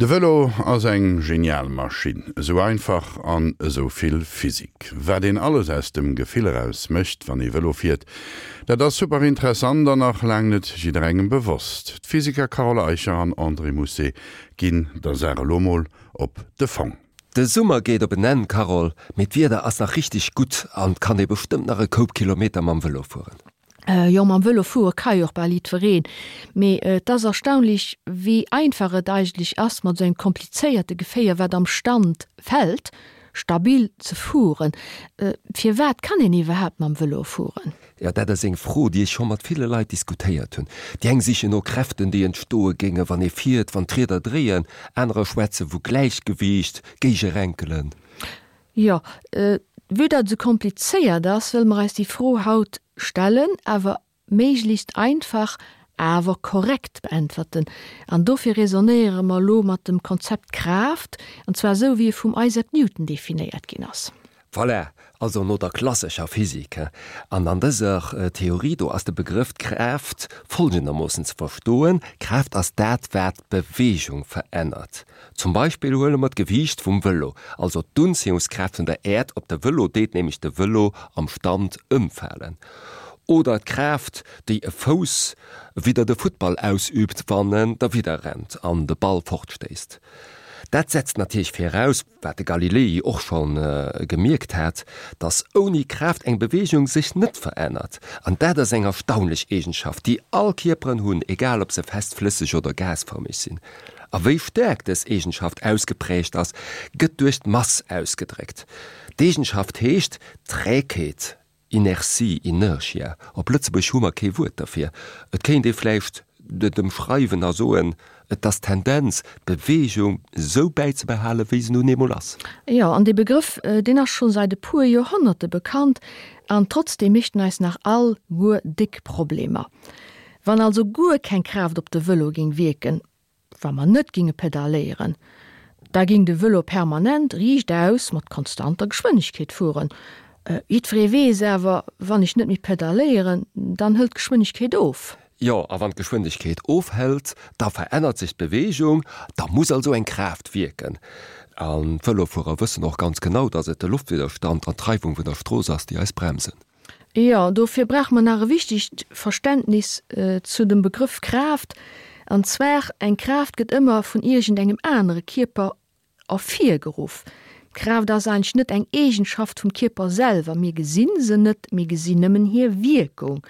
De Vëlo ass eng genial Maschinn, esou einfach an esou vill Physik. Wat een alles aus dem Gefill eraus mécht, wann ee Vëlo fiert, dat ass super interessant an nach laang net jidderengem bewosst. D'Physiker Carole Eicher an André Mousset ginn der Saach elo mol op de Fong. De Summer geet op en Enn, Carole, mee d'Wieder ass nach richteg gutt an 't kann ee bestëmmt nach e Koup Kilometer mam Vëlo fueren. Jo, mam Vëlo fuere ka jo och bal jiddwereen, mee et ass erstaunlech, wéi einfach et eigentlech ass, mat esou engem komplizéierte Geféier, wat am Stand fält, stabil ze fueren. Firwat kann een iwwerhaapt mam Vëlo fueren? Jo, dat ass eng Fro, déi ech scho mat ville Leit diskutéiert hunn. Déi eng sichen no Kräften, déi entstoe géinge wann ee fiert, wann d'Rieder dréien. Anerer schwätze vu Gläichgewiicht, Géigerenkelen. Jo, vue datt et esou komplizéiert ass, wëlle mer eis déi Fro haut stellen, awer méiglechst einfach, awer korrekt beäntwerten. An dofir raisonnéiere mer elo mat dem Konzept Kraaft, an zwar esou, wéi e vum Isaac Newton definéiert ginn ass. Voilà, also no der klassescher Physik. An an dëser Theorie do ass de Begrëff Kraaft folgendermoossen ze verstoen, Kraaft ass dat, wat d'Beweegung verännert. Zum Beispill huele mer d'Gewiicht vum Vëlo, also d'Unziehungskraaft vun der Äerd op de Vëlo deet nämlech de Vëlo am Stand ëmfalen. Oder d'Kraaft, déi e Fouss widder de Futtball ausüübt, wann en derwidder rennt an de Ball fortstéisst. Dat setzt natierlech viraus, wat de Galilei och scho gemierkt hat, dass ouni Kraaft eng Beweegung sech net verännert. An dat ass eng erstaunlech Eegenschaft, déi all Kierperen hunn, egal ob se fest, flësseg oder gasfërmeg sinn. A wéi staark dës Eegenschaft ausgeprägt ass, gëtt duerch d'Mass ausgedréckt. D'Eegenschaft heescht Trägheet, Inertie, Inertia. Op Lëtzebuerg hu mer kee Wuert derfir. Et kéint ee vläicht et ëmschreiwen a soen, et ass d'Tendenz, d'Beweegung esou bäizebehalen, wéi se nun eemol ass. Jo, an dee Begrëff, deen ass scho säit e puer Joerhonnerte bekannt, an trotzdeem mécht en eis nach all guer déck Problemer. Wann also guer keng Kraaft op de Vëlo géing wierken, wa mer net ginge pedalléieren, da ging de Vëlo permanent riichtaus mat konstanter Geschwënnegkeet fueren. Jiddweree weess awer, wann ech net méi pedalléieren, dann hëlt d'Geschwënnegkeet of. Jo, a wann d'Geschwënnegkeet ofhëlt, da verännert sech d'Beweegung, da muss also eng Kraaft wierken. An d'Vëlofuerer wëssen och ganz genau, dass et de Loftwidderstand an d'Reiwung vun der Strooss ass, déi eis bremsen. Jo, dofir brauche mer nach e wichtegt Verständnis zu dem Begrëff Kraaft, an zwar, Eng Kraaft gëtt ëmmer vun iergend engem anere Kierper ervirgeruff. D'Kraaft ass eigentlech net eng Eegenschaft vum Kierper selwer, mir gesi se net, mir gesinn nëmmen hir Wierkung,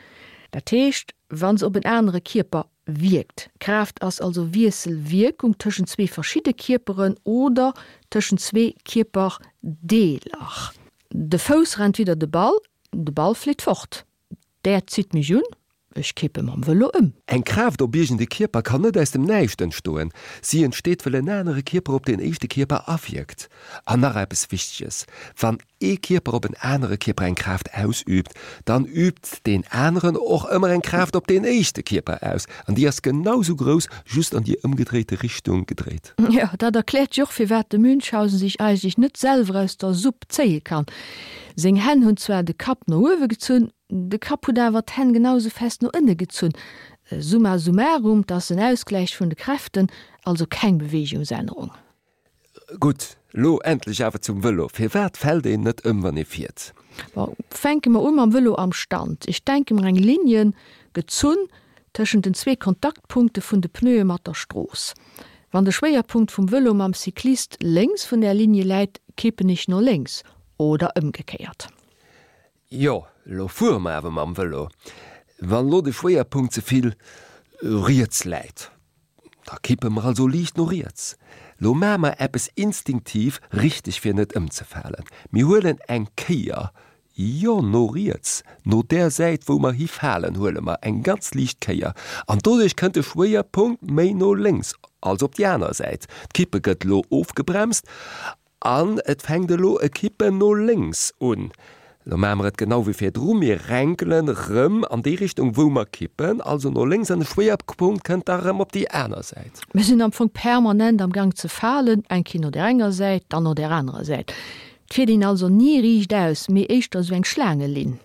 dat heescht, wa se op en anere Kierper wierkt. Kraaft ass also Wiesselwierkung tëschent zwee verschidde Kierperen oder tëschent zwee Kierperdeeler. De Fouss rennt widder de Ball, de Ball flitt fort. D'Äerd zitt mech un, ech kippe mam Vëlo ëm. Eng Kraaft op iergend e Kierper kann net aus dem Näischt entstoen. Si entsteet, wëll en anere Kierper op deen éischte Kierper awierkt. An nach eppes Wichteges, Wann ee Kierper op en anere Kierper eng Kraaft ausüübt, dann üübt deen aneren och ëmmer eng Kraaft op deen éischte Kierper aus. An déi ass genau sou grouss, just an déi ëmgedréite Richtung gedréit. Jo, dat erkläert jo och, firwat de Münchhausen sech eigentlech net selwer aus der Supp zéie kann. Seng Hänn hunn zwar de Kapp no uewe gezunn, de Kapp huet awer d'Hänn genau sou fest no ënne gezunn. Summa summarum, 't ass en Ausgläich vun de Kräften, also keng Beweegungsännerung. Gutt, lo endlech awer zum Vëlo. Firwat fält een net ëm, wann ee fiert? Bon, fänke mer u mam Vëlo am Stand. Ech denke mer eng Ligne gezunn tëschent den zwee Kontaktpunkte vun de Pneue mat der Strooss. Wann de Schwéierpunkt vum Vëlo mam Cyclist lénks vun där Ligne läit, kippen ech no lénks oder ëmgekéiert. Jo, lo fuere mer awer mam Vëlo. Wann lo de Schwéierpunkt ze vill riets läit, da kippe mer also liicht no riets. Lo maache mer eppes instinktiv richteg fir net ëmzefalen. Mir huelen eng Kéier, jo no riets, no där Säit wou mer hifalen huele mer eng ganz liicht Kéier an doduerch kënnt de Schwéierpunkt méi no lénks, also op déi aner Säit. D'Kippe gëtt lo ofgebremst An et fänkt elo e Kippen no lénks un. Elo maache mer et genau wéi virdru, mir renkelen erëm an déi Richtung wou mer kippen, also no lénks, an de Schwéierpunkt kënnt da erëm op déi aner Säit. Mir sinn am Fong permanent am Gang ze falen, eng Kéier no där enger Säit, dann no där anerer Säit. Et fiert een also ni riichtaus, mee éischter esou eng Schlaangelinn.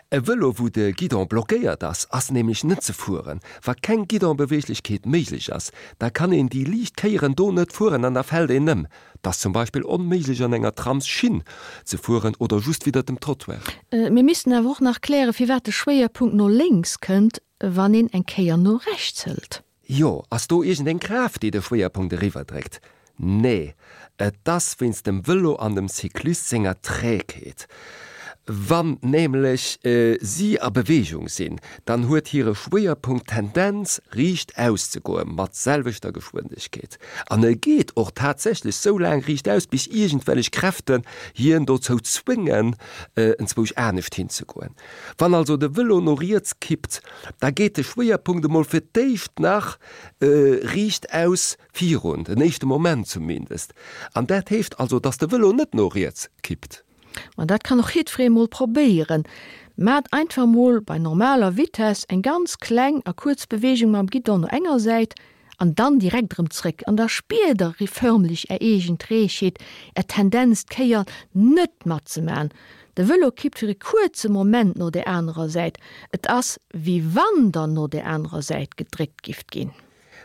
E Vëlo wou de Guidon blockéiert ass, ass nämlech net ze fueren. Wa keng Guidonbeweeglechkeet méiglech ass, da kann een déi liicht Kéieren do net fueren an da fält een ëm. 't ass zum Beispill onméiglech an enger Tramsschinn ze fueren oder just widder dem Trottoir. Mir missten awer och nach klären, firwat de Schwéierpunkt no lénks kënnt, wann een eng Kéier no rechts hëlt. Jo, ass do iergendeng Kraaft, déi de Schwéierpunkt eriwwerdréckt? Nee, et ass wéinst dem Vëlo an dem Cyclist senger Trägheet. Wann nämlech si a Beweegung sinn, dann huet hire Schwéierpunkt d'Tendenz riicht aus ze goe mat selwechter Geschwindegkeet. An e geet och tatsächlech sou laang riicht aus, bis iergendwellech Kräften hien dozou zwéngen, enzwousch anescht hinzegoen. Wann also de Vëlo no riets kippt, da geet de Schwéierpunkt emol fir d'éischt nach riicht aus virun, den éischte Moment zumindest. An dat heescht also, dass de Vëlo net no riets kippt. Ma dat kann och jiddweree mol probéieren. Maacht einfach mol bei normaler Vitess eng ganz kleng a kuerz Beweegung mam Guidon no enger Säit an dann direkt erëm zréck an da spiert der förmlech är eegen Trägheet, är Tendenz d'Kéier net matzemaachen. De Vëlo kippt fir e kuerze Moment no där anerer Säit, et ass wéi wann der no där anerer Säit gedréckt gifft ginn.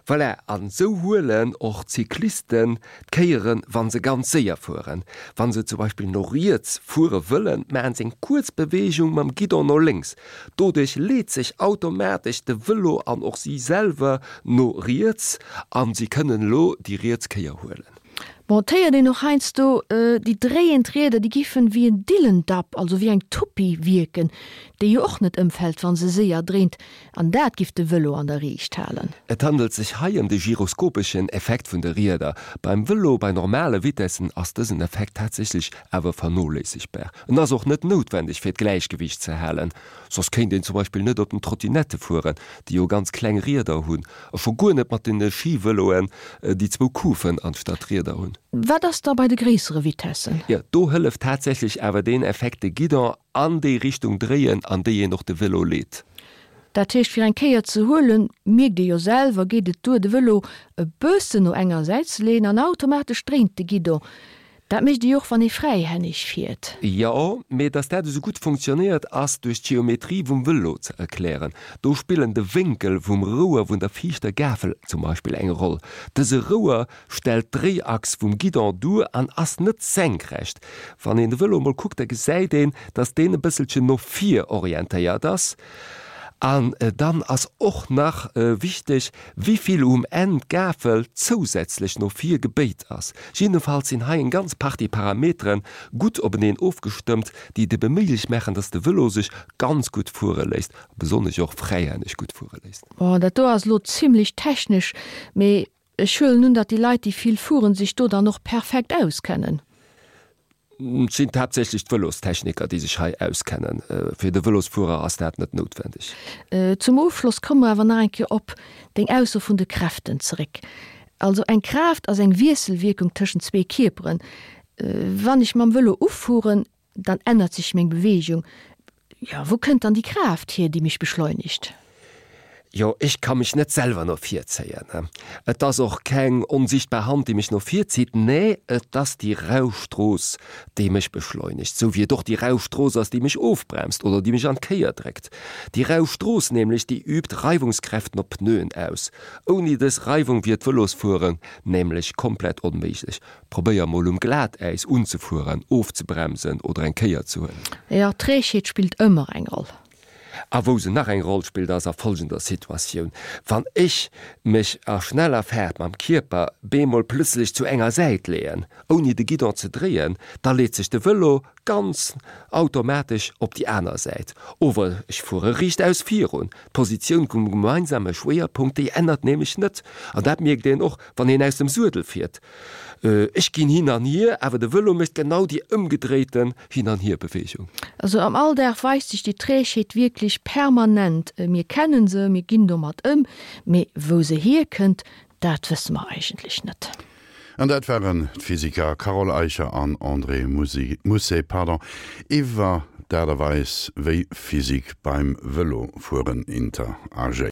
Voilà, an esou huelen och d'Cyclisten d'Kéieren, wa se ganz séier fueren. Wa se zum Beispill no riets fuere wëllen, maachen se eng kuerz Beweegung mam Guidon no lénks. Doduerch leet sech automatesch de Vëlo an och si selwer no riets a si kënnen elo déi riets Kéier huelen. Bon, et héiert een och heiansdo, déi dréiend Rieder, déi giffen wéi en Dillendapp, also wéi eng Tuppi wierken, déi jo och net ëmfält, wa se séier dréint. An dat giff de Vëlo an der Riicht halen. Et handelt sech hei ëm de gyroskopeschen Effekt vun de Rieder. Beim Vëlo bei normale Vitessen ass dësen Effekt tatsächlech awer vernoléissegbar. En ass och net noutwendeg fir d'Gläichgewiicht ze halen, soss kéint een zum Beispill net op den Trottinette fueren, déi jo ganz kleng Rieder hunn, a scho guer net mat den Skivëloen, déi zwou Kufen anstatt Rieder hunn. Wat ass da bei de gréissere Vitessen? Jo, do hëlleft tatsächlech awer deen Effekt de Guidon An déi Richtung dréien, an déi een och de Vélo leet. Dat heescht, fir eng Kéier ze huelen, mierkt ee jo selwer, geet et duer, de Vélo e bëssen no enger Säit ze leeën an automatesch dréint de Guidon. Dat mécht ee jo och, wann ee fräihänneg fiert. Jo, mee dass dat esou gutt funktionéiert, ass duerch d'Geometrie vum Vëlo ze erklären. Do spillen de Wénkel vum Rouer vun der viischter Gafel zum Beispill eng Roll. Dëse Rouer stellt d'Dréiachs vum Guidon duer an ass net senkrecht. Wann een de Vëlo emol kuckt, da gesäit een, dass deen e bësselchen no vir orientéiert ass. An dann ass och nach wichteg, wivill um Enn d'Gafel zousätzlech no vir gebéit ass. Jiddefalls sinn hei eng ganz Partie Parametere gutt openeen ofgestëmmt, déi et ebe méiglech maachen, dass de Vëlo sech ganz gutt fuere léisst, a besonnesch och fräihänneg gutt fuere léisst. Bon, dat do ass elo zimlech technesch, mee Ech huelen un, datt déi Leit, déi vill fueren, sech do dann och perfekt auskennen. Et sinn haaptsächlech d'Vëlostechniker, déi sech hei auskennen. Fir de Vëlosfuerer ass dat net noutwendeg. Zum Ofschloss komme mer awer nach eng Kéier op deng Ausso vun de Kräften zeréck. Also eng Kraaft ass eng Wiesselwierkung tëschent zwee Kierperen. Wann ech mam Vëlo ufueren, Dann ännert sech meng Beweegung. Jo, wou kënnt dann déi Kraaft hier, déi mech beschleunigt? Jo, ech ka mech net selwer no vir zéien. Et ass och keng onsichtbar Hand, déi mech no vir zitt. Nee, et ass déi rau Strooss, déi mech beschleunigt. Sou wéi et och déi rau Strooss ass, déi mech ofbremst oder déi mech an d'Kéier dréckt. Déi rau Strooss nämlech, déi übt Reiwungskräften op d'Pneuen aus. Ouni dës Reiwung wier d'Vëlosfueren nämlech komplett onméiglech. Probéier mol um Glatäis unzefueren, ofzebremsen oder eng Kéier ze huelen. Jo, Trägheet spillt ëmmer eng Roll. A wou se nach eng Roll spillt ass a folgender Situatioun, Wann ech mech a schneller Faart mam Kierper bemol plëtzlech zu enger Säit leeën, ouni de Guidon ze dréien, da leet sech de Vëlo ganz automatesch op déi aner Säit. Ower ech fuere riichtaus virun. D'Positioun vum gemeinsame Schwéierpunkt, déi ännert nämlech net. An dat mierkt een och, wann een aus dem Suedel fiert. Ech ginn hin an hier, awer de Vëlo mécht genau déi ëmgedréiten Hin-an-Hier-Beweegung. Also am Alldag weist sech déi Trägheet wierklech permanent. Mir kennen se, mir ginn domat ëm, mee wou se hierkënnt, dat wësse mer eigentlech net. An dat waren d'Physiker Carole Eicher an André Mousset, pardon, iwwer d'Aart a Weis, wéi Physik beim Vëlofueren interagéiert.